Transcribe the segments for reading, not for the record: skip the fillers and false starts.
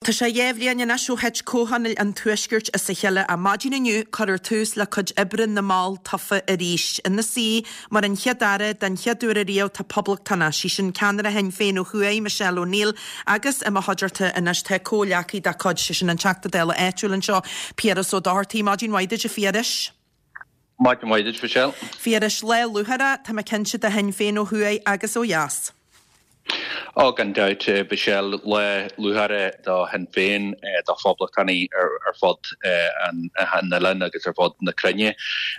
Tá sé 2 bhliain anois ó thit Comhthionól an Tuaiscirt as a chéile ach maidin inniu cuirfear tús le cuid oibre na mball tofa arís. Ina suí mar an Chéad-Aire den chéad uair ariamh tá poblachtánach, sí sin ceannaire Shinn Féin ó thuaidh, Michelle O'Neill agus i mo chuideachta anois tá comhghleacaí dá cuid, sé sin an Teachta Dála áitiúil anseo, Piaras Ó Dochartaigh. Maidin mhaith duit a Phiarais. Maidin mhaith duit, Michelle. Phiarais, lá lúcháireach, tá mé cinnte, do Shinn Féin ó thuaidh agus ó dheas. Ó, gan dabht, Michelle, lá lúcháireach do Shinn Féin, do phoblachtánaigh ar fud an oileáin agus ar fud na cruinne.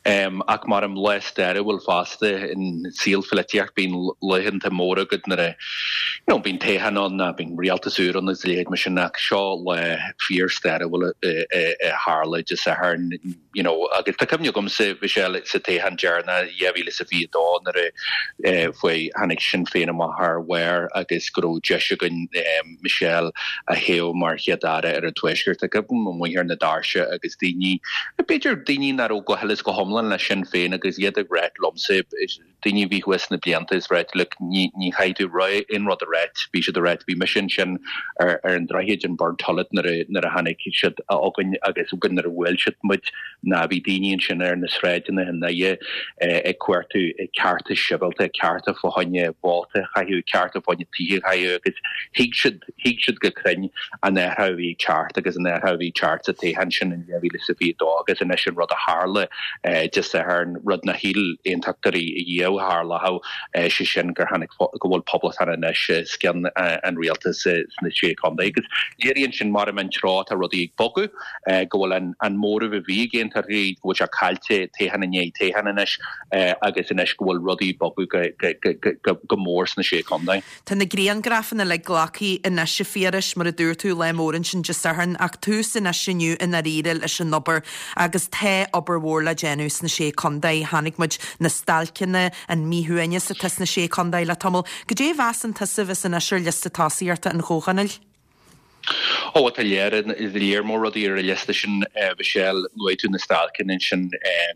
Ach maram lá stairiúil fosta in saol pholaitíocht, bíonn laethanta móra agat nuair a, you know, bíonn toghchán ann nó bíonn rialtas úr ann agus a leithéid mar sin ach seo lá fíor-stairiúil a tharla Dé Sathairn. you know, agus tá cuimhne agamsa, Michelle, sa toghchán deireanach, 2022 nuair a fuair, tháinig Sinn Féin amach thar bharr agus go raibh deis againn Michelle a thoghadh mar Chéad-Aire ar an Tuaisceart. Tá cuimhne amuigh ar na doirse agus daoine, b'fhéidir daoine nach raibh go huile is go hiomlán le Sinn Féin agus iad ag ráit liomsa, daoine a bhí thuas sna blianta is ráit look ní ní chaithfidh tú aon rud a ráit bhí siad a ráit bhí mise ansin ar ar an droichead in Burntollet nuair a nuair a tháinig siad chugainn agus nuair a bhuail siad muid ná bhí daoine ansin ar na sráideanna i nDoire ag cuartú cearta sibhialta cearta fá choinne vóta a chaitheamh cearta fá choinne tithe a chaitheamh agus thuig siad Thuig siad go cruinn an athrú a bhí ag teacht agus an athrú a bhí ag teacht sa toghchán sin in 2022 agus anois an rud a tharla Dé Sathairn, rud nár shíl aontachtóirí riamh a tharlódh, sé sin gur tháinig, go bhfuil poblachtánach anois os cionn an rialtais sna Sé Chontae. Agus léiríonn sin maram an treo atá rudaí ag bogadh, go bhfuil an móramh a bhí ag aontachtóirí, go bhfuil sé caillte toghchán i ndiaidh toghcháin anois agus anois go bhfuil rudaí ag bogadh go mór sna Sé Chontae. Tá na grianghrafanna uilig glactha anois a Phiarais, mar a dúirt tú, lá mór ansin Dé Sathairn, ach tús anois inniu i ndáiríre leis an obair agus tá obair mhór le déanamh sna Sé Contae. Chonaic muid na stailceanna, an míshuaimhneas atá sna Sé Contae le tamall. Goidé a mheasann tusa a bheas anois ar liosta tosaíochta an Chomhthionóil? Ó, tá léar, léar mór rudaí ar an liosta sin, Michelle. Luaigh tú na stailceanna ansin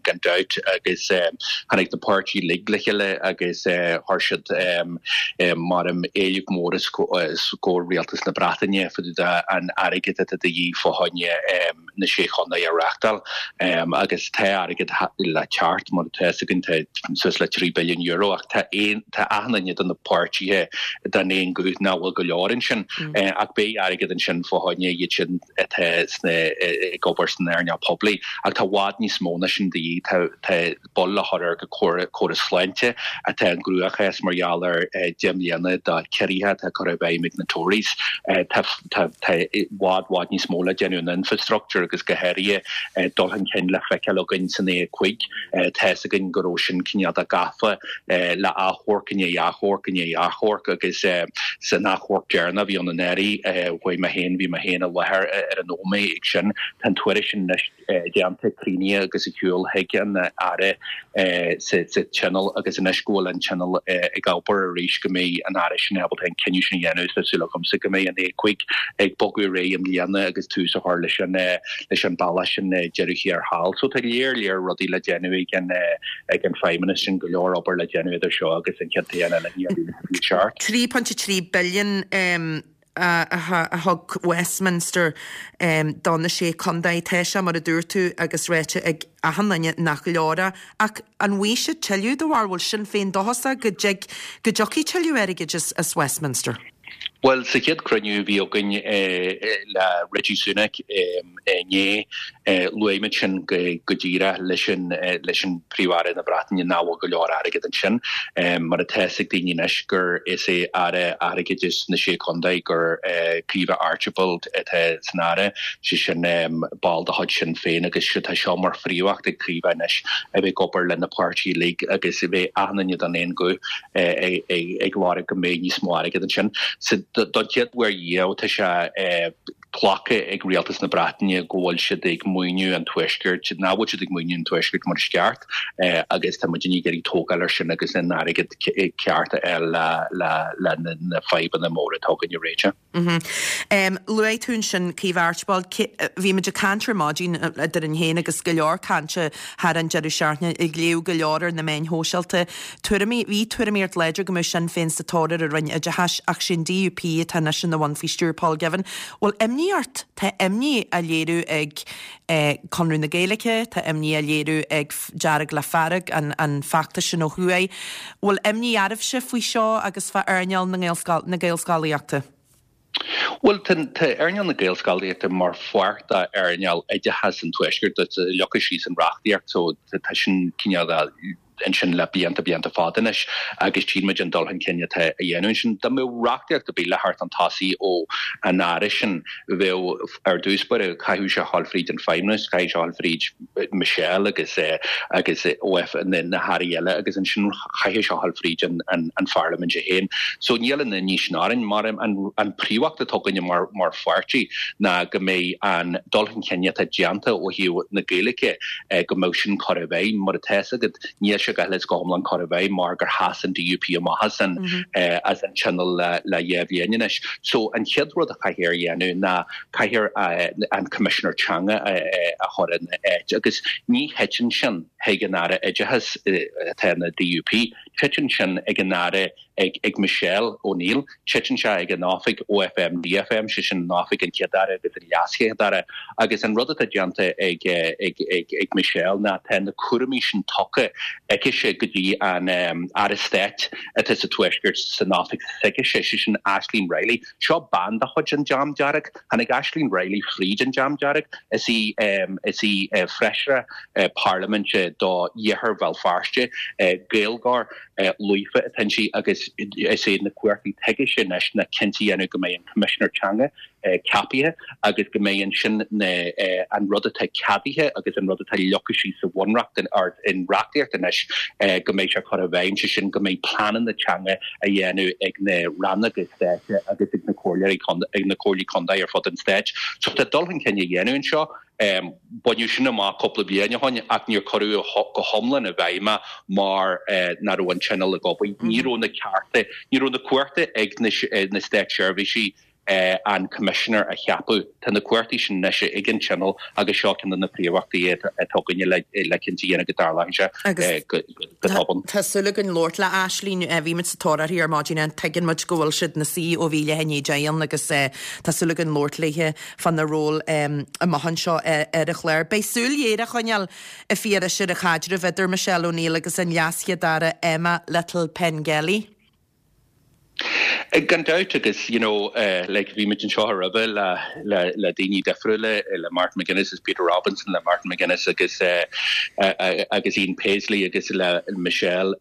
gan dabht agus tháinig na páirtithe uilig le chéile agus chuir siad maram éileamh mór os comhair rialtas na Breataine fá dtaobh de an airgead atá de dhíth fá choinne na Sé Chontae a reáchtáil agus tá airgead le teacht mar atá fhios againn tá suas le €3 billiún ach tá aon tá achan duine de na páirtithe den aon ghuth nach bhfuil go leor ansin ach beidh airgead ansin fá choinne iad sin atá sna ag obair san earnáil poiblí ach tá i bhfad níos mó ná sin de dhíth tá tá buille le chur ar an gcóras sláinte atá i gcruachás mar gheall ar 10 mbliana de ciorruithe atá curtha i bhfeidhm ag na Tories. Tá i bhfad bhfad níos mó le déanamh in infrastructure agus go háirithe dul chun cinn le feiceáil againn san A5. Tá fhios againn go raibh sin cineál de gafa le achomharc i ndiaidh achomharc i ndiaidh achomharc agus san achomharc deireanach a bhí ann anuraidh, chuaigh mé féin, bhí mé féin i láthair ar an nóiméad ag sin. Tá an tuairisc sin anois. déanta, críochnaithe agus ar shiúl chuig an Aire sa Tionól agus anois go bhfuil an Tionól ag obair arís go mbeidh an Aire sin ábalta an cinneadh sin a dhéanamh. Tá súil agamsa go mbeidh an A5 ag bogadh ar aghaidh i mbliana agus tús a chur leis an leis an bealach sin deireadh thiar thall. So tá léar léar rudaí le déanamh ag an ag an Feidhmeannas sin, go leor obair le déanamh idir seo agus an chéad toghchán eile in 2027. 3.3 billion. a thug Westminster do na Sé Chontae. Tá sé, mar a dúirt tú, agus ráite ag achan duine nach leor é. Ach an bhfaighidh siad tuilleadh do bharr? Bhfuil Sinn Féin dóchasach go dtig, go dtiocfaidh tuilleadh airgid as Westminster? Bhuel, sa chéad cruinniú a bhí againn le Rishi Sunak inné, luaigh muid sin go díreach leis an leis an Príomh-Aire na Breataine nach bhfuil go leor airgead ansin. Mar atá fhios ag daoine anois gur is é Aire Airgeadais na Sé Chontae gur Caoimhe Archibald atá san Aire, sé sin ball de chuid Sinn Féin agus tá seo mar phríomhacht ag Caoimhe anois a bheith ag obair le na páirtithe uilig agus a bheith achan duine den aon ghuth ag lorg go mbeidh níos mó airgead ansin. Don chéad uair riamh tá sé glactha ag rialtas na Breataine go bhfuil siad ag maoiniú an Tuaiscirt, nach bhfuil siad ag maoiniú an Tuaiscirt mar is ceart agus tá muidinne ag iarraidh tógáil ar sin agus an airgead ceart a fháil le na fadhbanna móra atá againn a réiteach. Luaigh tú ansin Caoimhe Archibald. Bhí muid ag caint ar maidin eadrainn féin agus go leor cainte thar an deireadh seachtaine, ag léamh go leor ar na meáin shóisialta. Tuairimí, bhí tuairimíocht láidir go mbeadh Sinn Féin sa tóir ar an Roinn Oideachais ach sé an DUP atá anois ina bhun faoi stiúir Paul Givan. Bhfuil imní. imní ort? Tá imní á léiriú ag Conradh na Gaeilge, tá imní á léiriú ag Dearg le Fearg, an feachtas sin ó thuaidh. Bhfuil imní oraibhse faoi seo agus fá earnáil na Gaelscolaíochta? Bhuel, tá earnáil na Gaelscolaíochta mar pháirt d'earnáil oideachas an Tuaiscirt, tá leagtha síos san reachtaíocht so tá sin cineál ansin le blianta, blianta fada anois agus tchíonn muid an dul chun cinn atá á dhéanamh ansin. Dá mbeadh reachtaíocht ar bith le theacht chun tosaigh ó an Aire sin, bheadh ar dtús báire, chaithfeadh sé a ghabháil fríd an Feidhmeannas, chaithfeadh sé a ghabháil fríd Michelle agus agus OF na hairí eile agus ansin chaithfeadh sé a ghabháil fríd an Pharlaimint é féin. So níl an imní sin orainn. Mar an príomhcheist atá againne mar mar pháirtí ná go mbeidh an dul chun cinn atá déanta ó thaobh na Gaeilge go mbeadh sin curtha i bhfeidhm. Mar atá fhios agat níl sé go huile is go hiomlán curtha i bhfeidhm mar gur sheas an DUP amach as an as an Tionól le le dhá bhliain anois. So an chéad rud a chaithfear a dhéanamh ná caithfear an Coimisinéir Teanga a chur ina áit agus ní thiteann sin chuig an Aire Oideachais atá ina DUP, titeann sin ag an Aire, ag Michelle O'Neill, titeann sé ag an oifig OFM DFM, sé sin an oifig an Chéad-Aire agus an LeasChéad-Aire agus an rud atá déanta ag Michelle ná tá na cúraimí sin tugtha aicise go dtí an Aire Stáit atá sa Tuaisceart san oifig s'aicise, sé sin Ashleen Riley. Seo bean de chuid an Dream Dearg. Tháinig Ashleen Riley fríd an Dream Dearg. Is í is í feisire parlaiminte do Iarthar Bhéal Feirste, Gaeilgeoir líofa atá inti agus is é na cumhachtaí atá aicise anois ná cinnte a dhéanamh go mbeidh an Coimisinéir Teanga ceapaithe agus go mbeidh ansin na an rud atá ceadaithe agus an rud atá leagtha síos sa bhunreacht or in reachtaíocht anois go mbeidh sé curtha i bhfeidhm, sé sin go mbeidh pleananna teanga á dhéanamh ag na rannóga stáit agus ag na comhairleoirí ag na comhairlí contae ar fud an stáit. So tá dul chun cinn á dhéanamh anseo. Baineadh sin amach cúpla bliain ó shin ach níor cuireadh go hiomlán i bhfeidhm é mar nach raibh an Tionól ag obair. Ní raibh na cearta, ní raibh na cumhachta ag na státseirbhísigh an Coimisinéir a cheapadh. Tá na cumhachtaí sin anois ag an Tionól agus seo ceann de na príomhachtaí atá againne le cinnte a dhéanamh go dtarlóidh sé go tobann. Tá súil againn labhairt le Ashleen. Bhí muid sa tóir uirthi ar maidin and tuigeann muid go bhfuil siad ina suí ó bhí leath i ndiaidh 10 ann agus tá súil againn labhairt léithe fána ról amach anseo ar an chlár. Beidh súil ghéar á choinneáil a Phiarais ar an chaidreamh idir Michelle O'Neill agus an LeasChéad-Aire Emma Little-Pengelly. Gan dabht agus you know like bhí muid anseo roimhe le le le daoine difriúla, le Martin McGuinness is Peter Robinson, le Martin McGuinness agus agus Ian Paisley agus le Michelle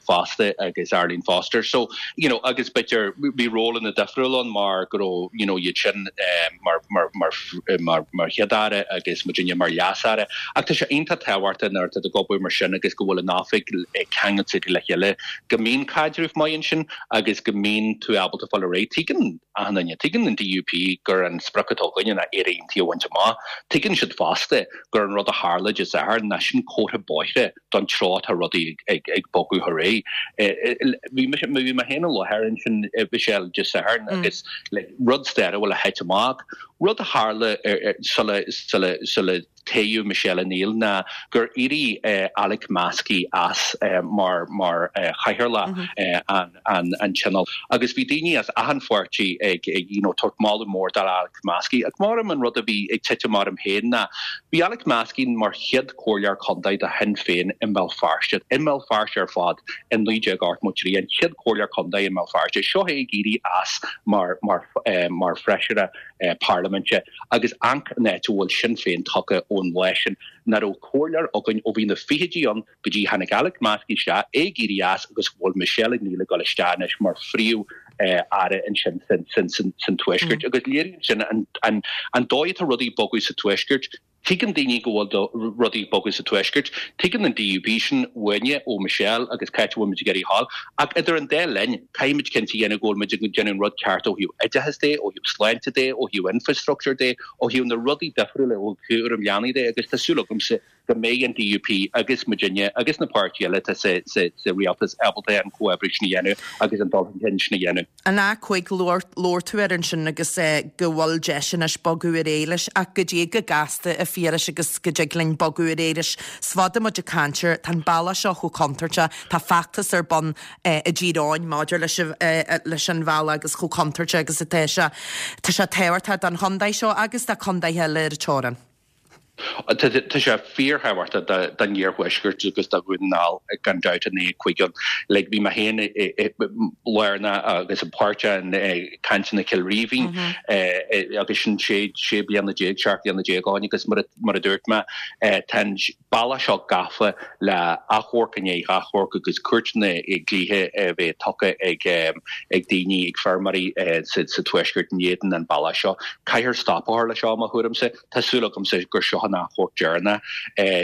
fosta agus Arlene Foster. So you know agus b'fhéidir bhí rólanna difriúla ann mar go raibh you know iad sin mar mar mar mar mar Chéad-Aire agus muidinne mar Leas-Aire. Ach tá sé iontach tábhachtach nuair atá tú ag obair mar sin agus go bhfuil an oifig ceangailte le chéile go mbíonn caidreamh maith ansin agus go mbíonn tú ábalta fáil ar aghaidh. Tuigeann achan duine, tuigeann an DUP gur an sprioc atá againne ná Éire Aontaithe a bhaint amach. Tuigeann siad fosta gur an rud a tharla Dé Sathairn ná sin comhartha bóithre don treo atá rudaí ag bogadh ar aghaidh. Bhí mise, bhí mé féin i láthair ansin, Michelle, Dé Sathairn agus like rud stairiúil a thit amach, rud a tharla sula, sula, sula, toghadh Michelle O'Neill ná gur éirigh Alex Maskey as mar mar chathaoirleach an an Tionóil agus bhí daoine as achan pháirtí ag you know tabhairt moladh mór do Alex Maskey. Ach maram an rud a bhí ag titim orm féin ná bhí Alex Maskey mar chéad chomhairleoir contae do Shinn Féin i mBéal Feirste, i mBéal Feirste ar fad i 1983, an chéad chomhairleoir contae i mBéal Feirste. Seo é ag éirí as mar mar mar feisire parlaiminte agus amharc an áit a bhfuil Sinn Féin tagtha ón lá sin. Nach raibh comhairleoir againn ó bhí na fichidí ann go dtí tháinig Alex Maskey isteach, é ag éirí as agus go bhfuil Michelle O'Neill ag dul isteach anois mar phríomh aire ansin san Tuaisceart. Agus léiríonn sin an dóigh atá rudaí ag bogadh sa Tuaisceart. Tuigeann daoine go bhfuil rudaí ag bogadh sa Tuaisceart. Tuigeann an DUP sin uainne, ó Michelle agus cá háit a bhfuil muid ag iarraidh a ghabháil. Ach idir an dá linn, caithfidh muid cinnte a dhéanamh go bhfuil muid ag déanamh an rud ceart ó thaobh oideachais de, ó thaobh sláinte de, ó thaobh infrastructure de, ó thaobh na rudaí difriúla, ó thaobh cúram leanaí de agus tá súil agamsa. go mbeidh an DUP agus muidinne agus na páirtithe eile atá sa rialtas ábalta an comhoibriú sin a dhéanamh agus an dul chun cinn sin a dhéanamh. An A5, labhair tú air ansin agus go bhfuil deis anois bogadh ar aghaidh leis ach goidé chomh gasta a Phiarais agus go dtig linn bogadh ar aghaidh leis. Is fada muid ag caint air, tá an bealach seo chomh contúirteach, tá feachtas ar bun i dTír Eoghain maidir leis leis an bhealach agus chomh contúirteach agus atá sé. Tá sé tábhachtach don chontae seo agus do chontaetha eile ar an teorainn. Tá sé fíorthábhachtach don iarthuaisceart agus do Dhún na nGall gan dabht an A5 ann. Like bhí mé féin lárnach agus páirteach i gcainteanna Chill Rímhinn agus sin sé sé bliana déag, 17 bliana ó shin agus mar a dúirt mé tá an bealach seo gafa le achomharc i ndiaidh achomhairc agus cúirteanna dlíthe a bheith tugtha ag ag daoine, ag feirmeoirí sa tuaisceart in éadan an bealach seo. Caithfear stop a chur leis seo, i mo thuairimse. Tá súil agamsa gur seo an achomharc deireanach.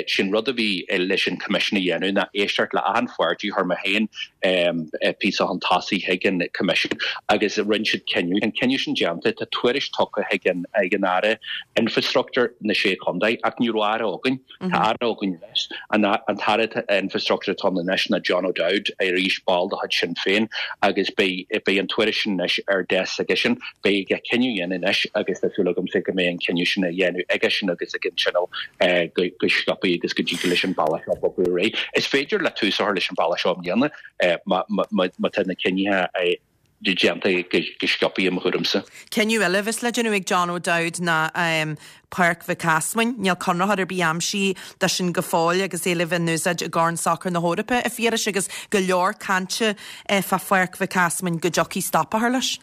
Sin rud a bhí leis an Coimisiún a dhéanamh ná éisteacht le achan pháirtí. Chuir mé féin píosa chun tosaigh chuig an Coimisiún agus rinne siad cinneadh. Tá an cinneadh sin déanta, tá tuairisc tugtha chuig an Aire Infreastruchtúir na Sé Chontae ach ní raibh Aire againn. Tá Aire againn anois. An tAire Infreastruchtúir atá ann anois ná John O'Dowd, arís ball de chuid Sinn Féin, agus beidh an tuairisc sin anois ar deasc aigesean. Beidh aige cinneadh a dhéanamh anois agus tá súil agamsa go mbeidh an cinneadh sin á dhéanamh aigesean agus ag an Tionól go sciobtha agus go dtig leis an bealach seo bogadh ar aghaidh. Is féidir le tús a chur leis an bealach seo i mbliana má tá na cinnithe déanta go sciobtha i mo thuairimse. Cinneadh eile a bheas le déanamh ag John O'Dowd ná Páirc Mhic Easmainn. Níl conraitheoir ar bith aimsithe dó sin go fóill agus é le bheith in úsáid i gCorn Sacair na hEorpa, a Phiarais, agus go leor cainte fá Pháirc Mhic Easmainn go dtiocfaidh stop a chur leis.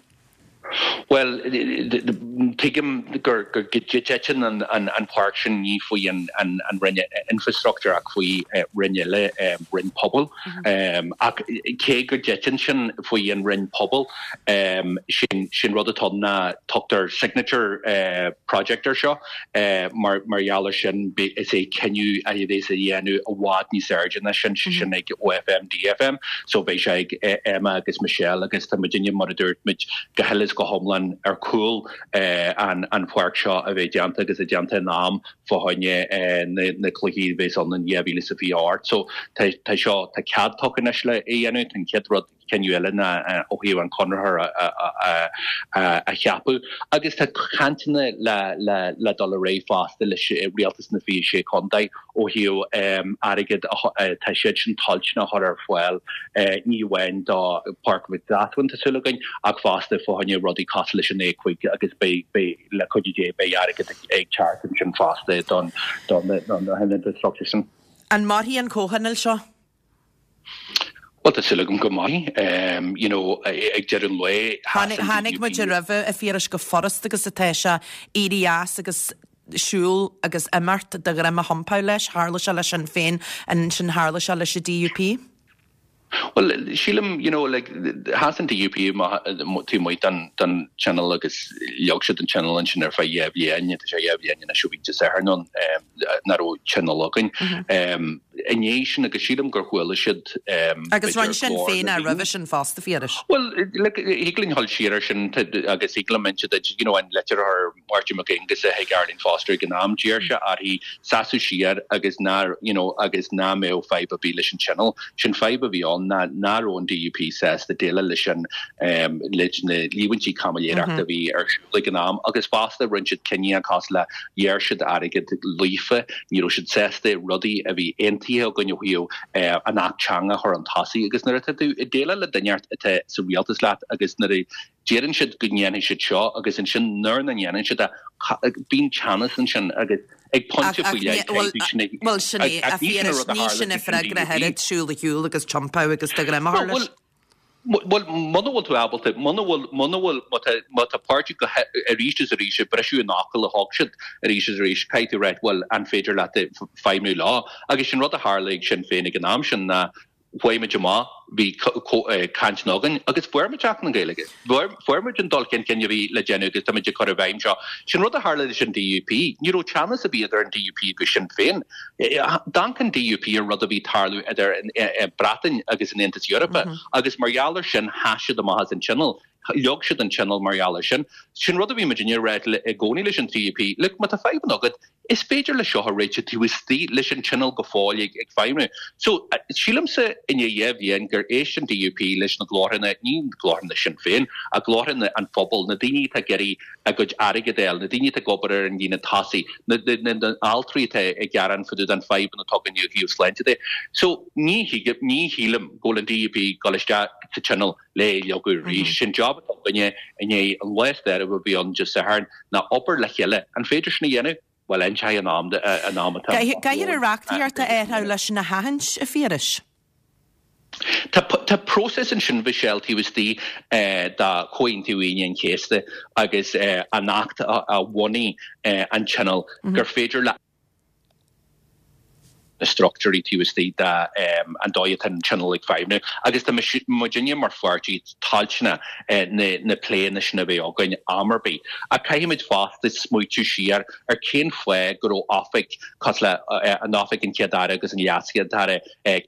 Bhuel, tuigim go dtiteann an pháirc sin ní faoi an Roinn Infreastruchtúir ach faoi Roinn eile, Roinn Pobail. Ach cé go dtiteann sin faoi an Roinn Pobail, sin rud atá ann ná tugtar signature project air seo. Mar gheall ar sin, is é cinneadh a bheas á dhéanamh i bhfad níos airde ná sin, sé sin ag OFM, DFM, so beidh sé ag Emma agus Michelle agus tá muidinne, mar a dúirt muid, go huile is go hiomlán ar chúl an pháirc seo a bheith déanta agus é déanta in am fá choinne na cluichí a bheas ann in 2028. So tá seo, tá cead tugtha anois le é a dhéanamh, tá an chéad rud, cinneadh eile ná ó thaobh an conraitheoir a cheapadh agus tá cainteanna le dul ar aghaidh fosta leis Rialtas na 26 Contae ó thaobh airgead atá siad sin toilteanach a chur ar fáil ní amháin do Pháirc Mhic Easmainn tá súil againn ach fosta fá choinne rudaí cosúil leis an A5 agus beidh le cuidiú Dé beidh airgead ag teacht ansin fosta don don infrastructure sin. An mairfidh an comhthionól seo? Bhuel, tá súil agam go mairfidh. You know, ag deireadh an lae, sheas an DUP. Chonaic muid roimhe, a Phiarais, chomh furasta agus atá sé éirí as agus siúl agus imeacht do dhroim a thiompú leis. Tharla sé le Sinn Féin, ansin tharla sé leis an DUP. Bhuel, sílim, you know, like, sheas an DUP taobh amuigh den Tionól agus leag siad an Tionól ansin ar feadh dhá bhliain, tá sé dhá bhliain anois ó bhí Dé Sathairn ann, nach raibh Tionól againn. I ndiaidh sin, agus sílim gur chuala siad, Agus rinne Sinn Féin é roimhe sin fosta, a Phiarais. Bhuel, look, thig linn dhul siar ar sin agus thig liom inse duit, you know, an litir a chuir Máirtín Mac Aonghusa chuig Arlene Foster ag an am, d'iarr sé uirthi seasamh siar agus ná, you know, agus ná mbeadh fadhb ar bith leis an Tionól. Sin fadhb a bhí ann ná ná raibh an DUP sásta déileáil leis an, leis na líomhaintí caimiléireachta a bhí ar siúl ag an am agus fosta rinne siad cinneadh cosúil le Ghearr siad airgead Líofa, ní raibh siad sásta rudaí a bhí aontaithe againn ó thaobh an Acht Teanga a chur chun tosaigh agus nuair atá tú ag déileáil le duine atá sa rialtas leat agus nuair a deireann siad go ndéanfaidh siad seo agus ansin nuair nach ndéanann siad é, bíonn teannas ansin agus ag pointe faoi leith caithfidh sin é. Bhuel, sin é, a Phiarais, ní sin an freagra ach oiread, siúl ar shiúl agus tiompú agus do dhroim a chur leis. Bhuel, muna bhfuil tú ábalta, muna bhfuil, muna bhfuil, má tá, má tá páirtí go arís is arís ag briseadh an fhocail a thug siad arís is arís, caithfidh tú ráit, bhuel, an féidir leat feidhmiú leo? Agus sin rud a tharla ag Sinn Féin ag an am sin ná chuaigh muid amach, bhí cainteanna againn agus fuair muid Acht na Gaeilge. Fuair muid an dul chun cinn a bhí le déanamh agus táimid ag cur i bhfeidhm seo. Sin rud a tharla leis an DUP. Ní raibh teannas ar bith idir an DUP agus Sinn Féin. D'amharc an DUP ar rud a bhí ag tarlú idir an Bhreatain agus an Aontas Eorpach agus mar gheall ar sin sheas siad amach as an Tionól. Leag siad an Tionól mar gheall ar sin. Sin rud a bhí muidinne ag rá i gcónaí leis an DUP, look, má tá fadhbanna agat, Is féidir le seo a réiteach taobh istigh leis an Tionól go fóill ag feidhmiú. So, sílimse i ndiaidh 2 bhliain gur éist an DUP leis na glórtha, ní glórtha Sinn Féin, ach glórtha an phobail, na daoine atá ag iarraidh a gcuid airgid a fháil, na daoine atá ag obair ar an líne tosaigh, na altraí atá ag gearán fá dtaobh den fadhbanna atá againn ó thaobh sláinte de. So, ní ní shílim go bhfuil an DUP ag dul isteach sa Tionól le é a leagadh arís. Sin job atá againne i ndiaidh an lá stairiúil a bhí ann Dé Sathairn ná obair le chéile. An féidir sin a dhéanamh? Bhuel, inseoidh an am an am atá Caithfear an reachtaíocht a athrú leis sin a sheachaint, a Phiarais. Tá tá próiseas ansin, Mhichelle, taobh istigh de Chomhaontú Aoine an Chéasta agus an Acht a bhunaigh an Tionól gur féidir le na struchtúirí taobh istigh de an dóigh atá an Tionól ag feidhmiú agus tá muidinne mar pháirtí toilteanach na pléanna sin a bheith againn am ar bith. Ach caithfimid fosta smaoitiú siar ar cén fáth go raibh oifig cosúil le an Oifig an Chéad Aire agus an Leas-Chéad Aire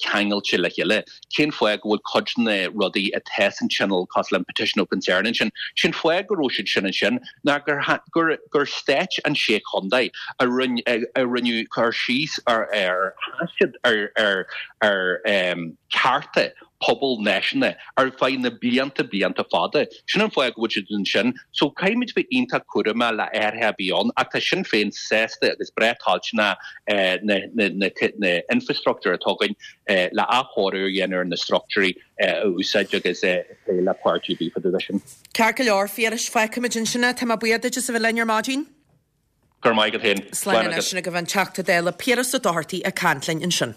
ceangailte le chéile. Cén fáth go bhfuil cuid de na rudaí atá san Tionól cosúil le an Petition of Concern ansin? Sé'n fáth go raibh siad sin ansin ná gur gur gur stáit an sé chontae a rinne a rinneadh cur síos ar ar sheas siad ar ar ar cearta pobal náisiúnta ar feadh na blianta blianta fada. Sin an fáth go bhfuil siad ansin. So caithfimid bheith iontach cúramach le athruithe a bheith ann ach tá Sinn Féin sásta agus breá toilteanach na na na na infrastructure atá againn le athchóiriú a dhéanamh ar na struchtúirí a úsáid agus plé le páirtí ar bith fá dtaobh de sin. Ceart go leor, Phiarais, fágfaimid ansin é. Tá mé buíoch duit as a bheith linn ar maidin. Go raibh maith agat féin. Slán anois. Sin agaibh an Teachta Dála Piaras Ó Dochartaigh ag caint linn ansin.